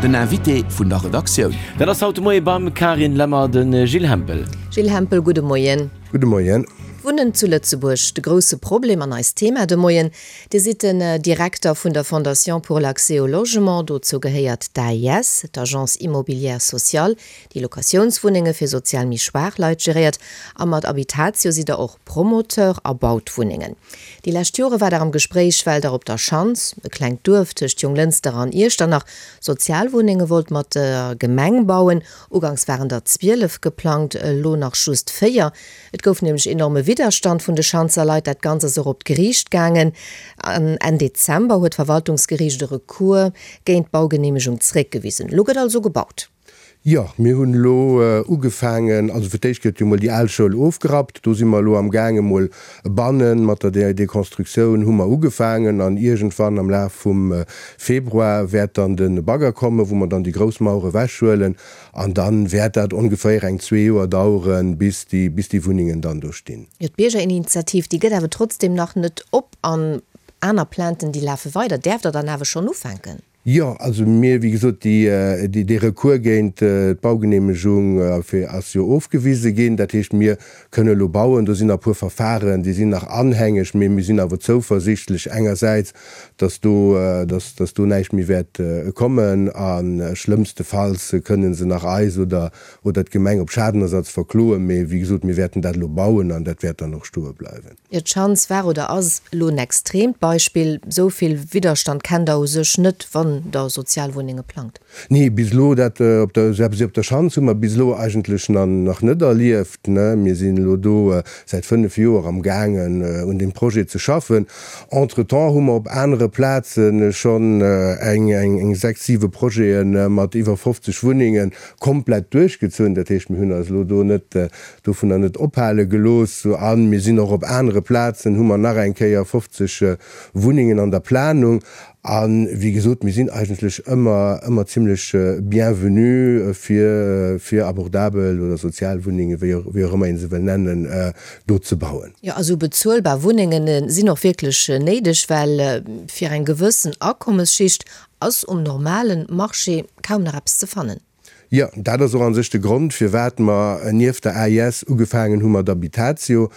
Den Invité vun der Redaktioun. Dat ass haut de Moie beim Carine Lemmer de Gilles Hempel. Gilles Hempel, gudde Moien. Gudde Moien. Wunnen zu Lëtzebuerg, de grousse Problem an eist Thema de Moien. Dir sidd den Direkter vun der Fondation pour l'accès au logement. Dozou gehéiert d'AIS, d'Agence immobilière sociale, déi Locatiounswunnenge fir sozial méi schwaach Leit geréiert. A mat Habitatio sidd der och Promoteur a baut Wunnengen. Déi lescht Jore war der am Gespréich, well der op der Schanz, e klengt Duerf tëscht Jonglënster an Iechternach, Sozialwunnenge wollt mat der Gemeng bauen. Uganks waren der 12 geplangt, elo nach just 4. Et gouf nämlech enorme Widderstand vun de Schanzer Leit. Dat Ganzt ass och op d'Geriicht gaangen. An Enn Dezember huet d'Verwaltungsgeriicht e Recours géint d'Baugeneemegung zeréckgewisen. Elo gëtt also gebaut. Jo, mir hunn elo ugefaangen, also fir d'éischt gëtt jo mol déi al Schoul ofgerappt, do si mer elo am gaange mol bannen, mat der Deconstructioun hu mer ugefaangen an iergendwann am Laf vum Februar wäert dann de Bagger kommen, wou mer dann déi grouss Mauer ewechhuelen an da wäert dat ongeféier eng zwee Joer daueren, bis déi, bis déi Wunnengen dann do stinn. Jo, d'Biergerinitiativ, déi gëtt awer trotzdem nach net op an aner Plainten, déi lafe weider. Däerft Der dann awer schonn ufänken? Jo, also mir, wéi gesot, déi, dee Recours géint d'Baugeneemegung ass jo ofgewise ginn. Dat heescht, mir kënne elo bauen. Do sinn nach e puer Verfahren, déi sinn nach anhängeg, mee mir sinn awer zouversichtlech engersäits, dass do, dass, dass do näischt méi wäert kommen. A schlëmmstefalls kënne se nach eis oder, oder d'Gemeng op Schadenersatz verkloen. Mee wéi gesot, mir wäerten dat elo bauen an dat wäert dann och stoe bleiwen. Jo, d'Schanz war oder ass elo en extreemt Beispill. Esou vill Widderstand kennt Der u sech net, wann Der Sozialwunnenge plangt. Nee, bis elo, dat op der, esou eppes wéi op der Schanz hu mer bis elo eigentlech nach net erlieft. Mir sinn elo do säit 5 Joer am gaangen un deem Projet ze schaffen. Entretemps hu mer op anere Plaze schonn eng 6, 7 Projete mat iwwer 50 Wunnenge komplett duerchgezunn. Dat heescht, mir hunn eis elo do net dovunner net ophale gelooss a mir sinn och op anere Plazen, hu mer nach eng Kéier 50 Wunnengen an der Planung. A wéi gesot, mir sinn eigentlech ëmmer, ëmmer zimlech bienvenu fir, fir abordabel oder sozial Wunnengen, wéi och, wéi och ëmmer ee se wëll nennen, do ze bauen. Jo, a sou bezuelbar Wunnenge sinn och wierklech néideg, well fir eng gewëssen Akommesschicht ass um normale Marché kaum nach eppes ze fannen. Jo, dat ass och a sech de Grond, firwat mer nieft der AIS ugefaangen hu mat Habitatio.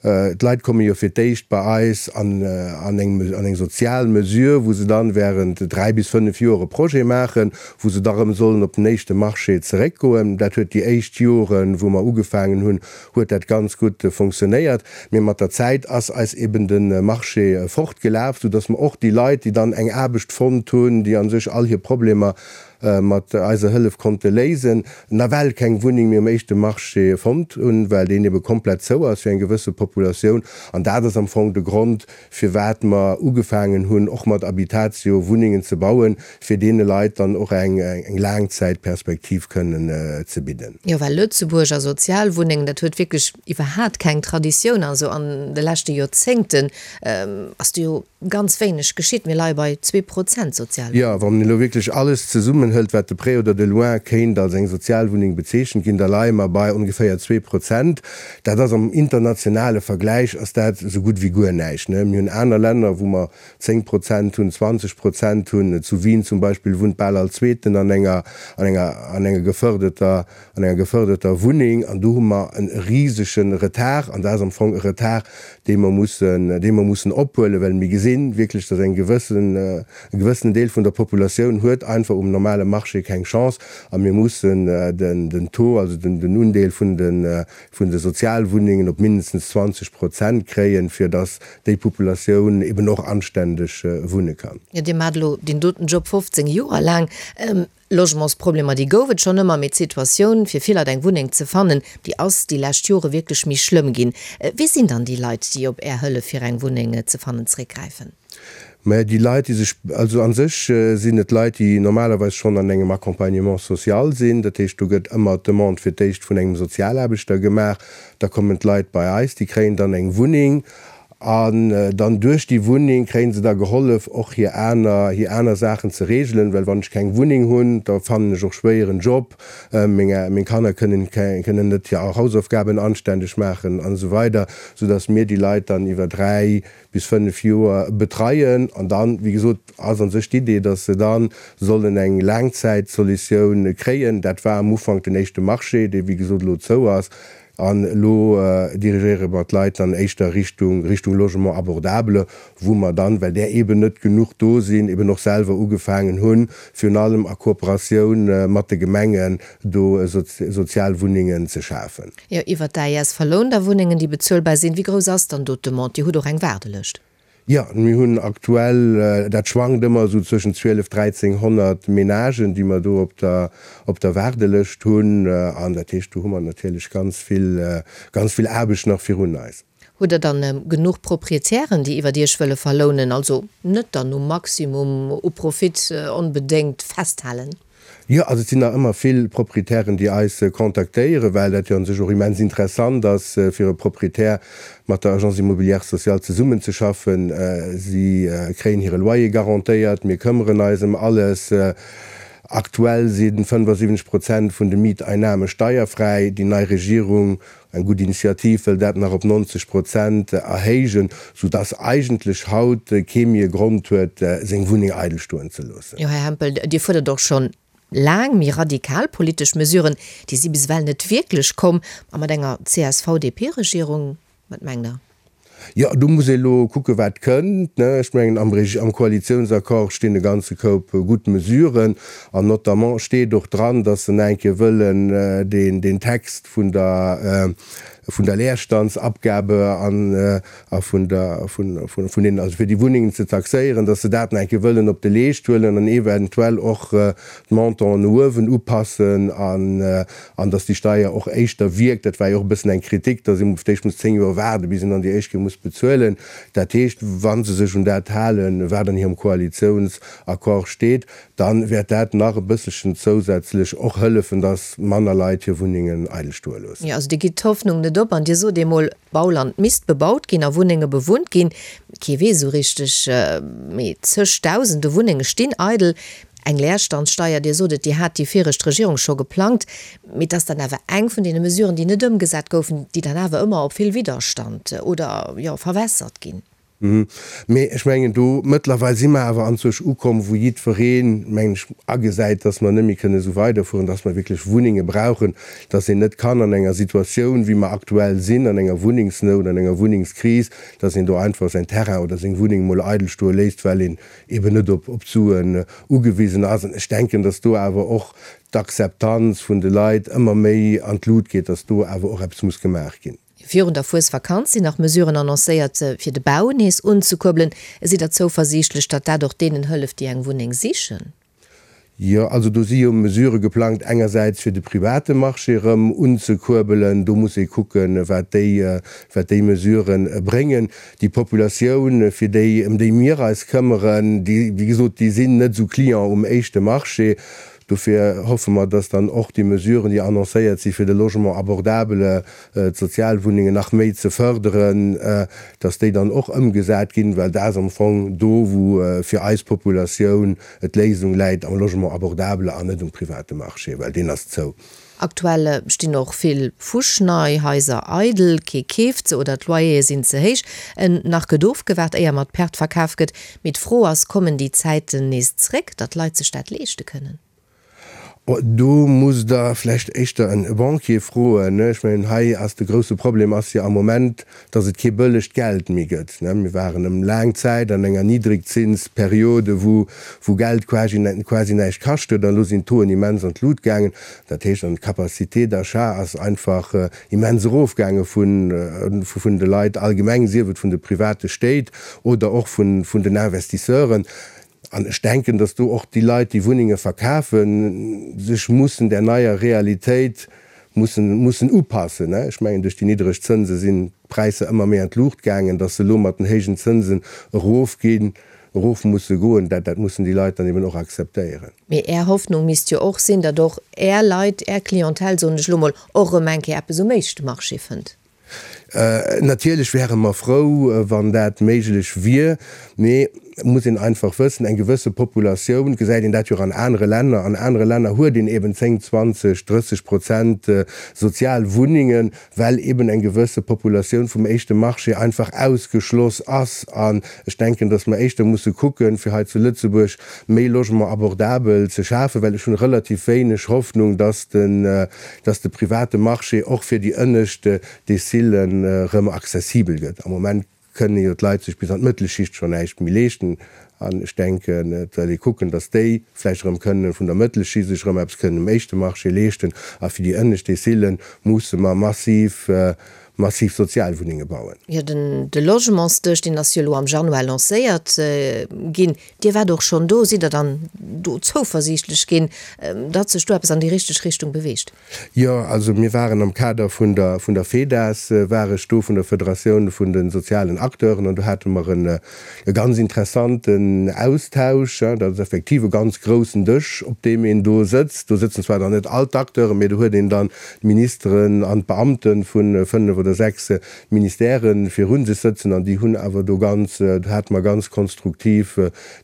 D'Leit komme jo fir d'éischt bei eis an eng sozial Mesure, wou se dann während 3 bis 5 Joer e Projet maachen, wou se da rëm sollen op den éischte Marché zeréckgoen. Dat huet déi éischt Joren, wou mer ugefaangen hunn, huet dat ganz gutt fonctionnéiert. Mee mat der Zäit ass eis eben de Marché fortgelaf, soudass mer och déi Leit, déi dann eng Aarbecht fonnt hunn, déi a sech all hir Problemer mat eiser Hëllef konnte léisen, nawell keng Wunneng méi um éischte Marché fonnt hunn, well deen ebe komplett zou ass fir eng gewësse Populatioun. An dat ass am Fong de Grond, firwat mer ugefaangen hunn, och mat Habitatio Wunnengen ze bauen, fir deene Leit dann och eng Laangzäitperspektiv kënnen ze bidden. Jo, well Lëtzebuerg a Sozialwunnengen, dat huet wierklech iwwerhaat keng Traditioun. Also an de leschte Joerzéngten ass do jo Ganz wéineg geschitt, mir leie bei 2% Sozialwunnengen. Jo, wann een elo wierklech alles zesummenhëlt, wat de près oder de loin kéint als eng Sozialwunneng bezeechent ginn, da leie mer bei ongeféier 2%. Dat ass am internationale Vergläich ass dat esou gutt wéi guer näischt. Mir hunn aner Länner, wou mer 10% hunn, 20% hunn. Zu Wien zum Beispill wunnt bal all Zweeten an enger, an enger, an enger gefërdeter, an enger gefërderter Wunneng. An do hu mer e risege Retard. An dat ass am Fong e Retard, dee mer mussen, dee mer mussen ophuelen, well mir gesinn wierklech, dass eng gewëssen, e gewëssenen Deel vun der Populatioun huet einfach um normale Marché keng Chance a mir mussen den, den Taux, also den, den Undeel vun de, vun de Sozialwunnengen op mindestens 20 Prozent kréien, fir dass déi Populatioun eben och anständeg wunne kann. Jo, Dir maacht elo deen doten Job 15 Joer laang. Logementsproblemer, déi gouf et schonn ëmmer, mee d'Situatioun, fir vill Leit eng Wunneng ze fannen, déi ass déi lescht Jore wierklech méi schlëmm ginn. Wie sinn dann déi Leit, déi op Är Hëllef fir eng Wunneng ze fannen zeréckgräifen? Mä déi Leit, déi sech, also a sech sinn et Leit, déi normalerweis schonn an engem Accompagnement social sinn. Dat heescht, do gëtt ëmmer d'Demande fir d'éischt vun engem Sozialaarbechter gemaach. Da kommen d'Leit bei eis, déi kréien dann eng Wunneng. An dann duerch déi Wunneng kréie se da gehollef, och hir aner, hir aner Saachen ze regelen, well wann ech keng Wunneng hunn, da fannen ech och schwéier en Job, meng, meng Kanner kënnen, kënnen net hir Hausaufgaben anständeg maachen an esou weider, soudass mir déi Leit dann iwwer 3 bis 5 Joer betreien. An dann, wéi gesot, ass an sech d'Idee, dass se da sollen eng Laangzäitsolutioun kréien. Dat war am Ufank den éischte Marché, dee wéi gesot elo zou ass. An elo dirigéiere mer d'Leit dann éischter Richtung, Richtung Logement abordable, wou mer dann, well där eeben net genuch do sinn, eeben och selwer ugefaangen hunn, virun allem a Kooperatioun mat de Gemengen, do Sozialwunnengen ze schafen. Jo, iwwert d'AES verlount Der Wunnengen, déi bezuelbar sinn. Wéi grouss ass dann do d'Demande? Dir hutt och eng Waardelëscht. Jo, mir hunn aktuell, dat schwankt ëmmer esou zwëschen 12, 1300 Menagen, déi mer do op der, op der Waardelëscht hunn. An dat heescht, do hu mer natierlech ganz vill, ganz vill Aarbecht nach virun eis. Hutt Der dann genuch Proprietären, déi iwwert Iech wëlle verlounen, also net dann um Maximum u Profit onbedéngt festhalen? Jo, also et sinn nach ëmmer vill Proprietären, déi eis kontaktéieren, well dat jo an sech och immens interessant ass fir e Proprietär mat der Agence immobilière sociale zesummenzeschaffen. Si kréien hire Loyer garantéiert, mir këmmeren eis ëm alles. Aktuell si 75 Prozent vun de Mieteinnahme steierfräi. Déi nei Regierung Eng gutt Initiativ wëll dat nach op 90 Prozent erhéijen, sou dass eigentlech haut kee méi e Grond huet, seng Wunneng eidel stoen ze loossen. Jo, Här Hempel, Dir fuerdert och schonn laang méi radikal politesch Mesuren. Déi si bis ewell net wierklech komm. A mat enger CSV-DP-Regierung, wat mengt Der? Jo, do muss ee elo kucken, wat kënnt. Ech mengen, am am Koalitiounsaccord stinn e ganze Koup gutt Mesuren. An notamment steet och dran, datt se nach eng Kéier wëllen deen, deen Text vun der, vun der Leerstandsabgabe an a vun der, vun, vun, vun deenen, also fir déi Wunnengen ze taxéieren, datt se dat nach eng Kéier wëllen op de Leescht huelen an eventuell och d'Montanten no uewen upassen an, an dass déi Steier och éischter wierkt. Dat war jo och e bëssen eng Kritik, dass ee fir d'éischt muss 10 Joer waarden, bis een dann déi éischt Kéier muss bezuelen. Dat heescht, wa se sech un dat halen, wat an hirem Koalitiounsaccord steet, da wäert dat nach e bësselchen zousätzlech och hëllefen, dass manner Leit hir Wunnengen eidel stoe loossen. Jo, also Dir gitt d'Hoffnung net op an Dir sot eemol, Bauland misst bebaut ginn a Wunnenge bewunnt ginn. Kee weess esou richteg, mee zegdausende Wunnenge stinn eidel. Eng Leerstandssteier, Dir sot et, déi hat déi viregt Regierung scho geplangt, mee et ass dann awer eng vun deene Mesuren, déi net ëmgesat goufen, déi dann awer ëmmer op vill Widderstand oder, jo, verwässert ginn. Mee ech mengen, do mëttlerweil si mer awer anzwousch ukomm, wou jiddwereen, mengen ech, agesäit, dass mer net méi kënne esou weiderfueren, dass mer wierklech Wunnenge brauchen, dass een net kann an enger Situatioun, wéi mer aktuell sinn, an enger Wunnengsnout, an enger Wunnengskris, dass een do einfach säin Terrain oder seng Wunneng emol eidel stoe léisst, well een eben net op d'Suen ugewisen ass. An ech denken, dass do awer och d'Akzeptanz vun de Leit ëmmer méi an d'Lut geet, dass do awer och eppes muss gemaach ginn. Virun der Fuesvakanz sinn nach Mesuren annoncéiert, fir de Bau nees unzekuerbelen. Sidd Der zouversiichtlech, datt dat och deenen hëlleft, déi eng Wunneng sichen? Jo, also do si jo Mesurë geplangt, engersäits fir de private Marché erëm unzekuerbelen. Do muss ee kucken, wat déi, wat déi Mesurë bréngen. Déi Populatioun, fir déi, ëm déi mir eis këmmeren, déi, wéi gesot, déi sinn net esou Client um éischte Marché. Dofir hoffe mer, dass dann och déi Mesuren, déi annoncéiert si fir de Logement abordable, d'Sozialwunnengen nach méi ze fërderen, dass déi dann och ëmgesat ginn, well dat ass am Fong do, wou fir eis Populatioun et d'Léisung läit, am Logement abordable an net um private Marché, well deen ass zou. Aktuell stinn och vill fuschnei Haiser eidel, kee keeft se oder d'Loyere sinn ze héich. En nach gëtt ofgewaart, éier mat Perte verkaf gëtt. Mee d'Fro ass, Kommen déi Zäiten nees zréck, datt d'Leit sech dat leeschte kënnen? Do musst Der vläicht éischter e Banquier froen. Ech mengen, hei ass de grousse Problem ass jo am Moment, dass et kee bëllegt Geld méi gëtt. Mir waren ëm laang Zäit an enger Niddrigzinsperiode, wou wou Geld quasi quasi näischt kascht huet. An elo sinn d'Tauxen immens an d'Lut gaangen. Dat heescht, an d'Capacité d'achat ass einfach immens erofgaange vun vun de Leit allgemeng, sief et vun de private Stéit oder och vun vun den Investisseuren. An ech denken, datt do och déi Leit, déi Wunnenge verkafen, sech mussen där neier Realitéit mussen, mussen upassen. Ech mengen, duerch déi niddreg Zënse sinn d'Präisser ëmmer méi an d'Luucht gaangen. Datt se elo mat den héijen Zënsen erofginn, erof musse goen, dat, dat mussen déi Leit dann eben och akzeptéieren. Mee Är Hoffnung misst jo och sinn, datt och Är Leit, Är Clientèle, soen ech elo mol, och erëm eng Kéier eppes um éischte Marché fënnt. Natierlech wäre mer frou, wann dat méiglech wier, mee et muss een einfach wëssen, eng gewësse Populatioun, gesäit een dat jo och an anere Länner, an anere Länner huet een eben 10, 20, 30 Prozent sozial Wunnengen, well eben eng gewësse Populatioun vum éischte Marché einfach ausgeschloss ass. An ech denken, datt mer éischter musse kucken, fir hei zu Lëtzebuerg méi Logement abordabel ze schafen, well ech hunn relativ wéineg Hoffnung, datt den, datt de private Marché och fir déi ënnescht Decilen erëm accessibel gëtt. Am Moment kënne jo d'Leit sech bis an d'Mëttelschicht schonn näischt méi leeschten. An ech denken, et soll ee kucken, datt déi vläicht erëm kënnen vun der Mëttelschicht sech erëm eppes kënnen um éischte Marché leeschten. A fir déi ënnescht Decile musse mer massiv, massiv Sozialwunnenge bauen. Jo, den de Logementsdësch, deen ass jo elo am Januar lancéiert ginn. Dir waart och schonn do. Sidd Der dann do zouversiichtlech ginn, datt sech do eppes an déi richteg Richtung beweegt? Jo, also mir waren am Kader vun der vun der FEDAS war ech do, vun der Federatioun vun de sozialen Acteuren, an do hate mer en e ganz interessanten Austausch. Dat ass effektiv e ganz groussen Dësch, op deem een do sëtzt. Do sëtzen zwar dann net all d'Acteuren, mee do huet een dann d'Ministeren an d'Beamte vu fënnef oder sechs Ministèrë virun sech sëtzen, an déi hunn awer do ganz, do hate mer ganz konstruktiv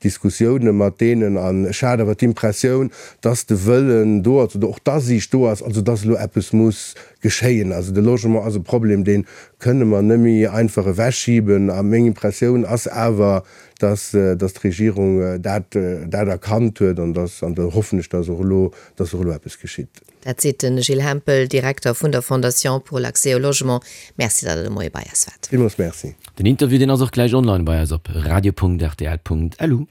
Diskussioune mat deenen an ech hat awer d'Impressioun, dass de Wëllen do ass oder och d'Asiicht do ass, also dass elo eppes muss geschéien. Also de Logement ass e Problem, dee kënne mer net méi einfach ewechschiben. A meng Impressioun ass awer, dass, dass d'Regierung dat, dat erkannt huet an dass, an da hoffen ech, dass och elo, dass och elo eppes geschitt. Dat seet de Gilles Hempel, Direkter vun der Fondation pour l'accès au logement. Merci, datt Der de Moie bei eis waart. Villmools Merci. Den Interview deen ass och gläich online bei eis op radio.rtl.lu.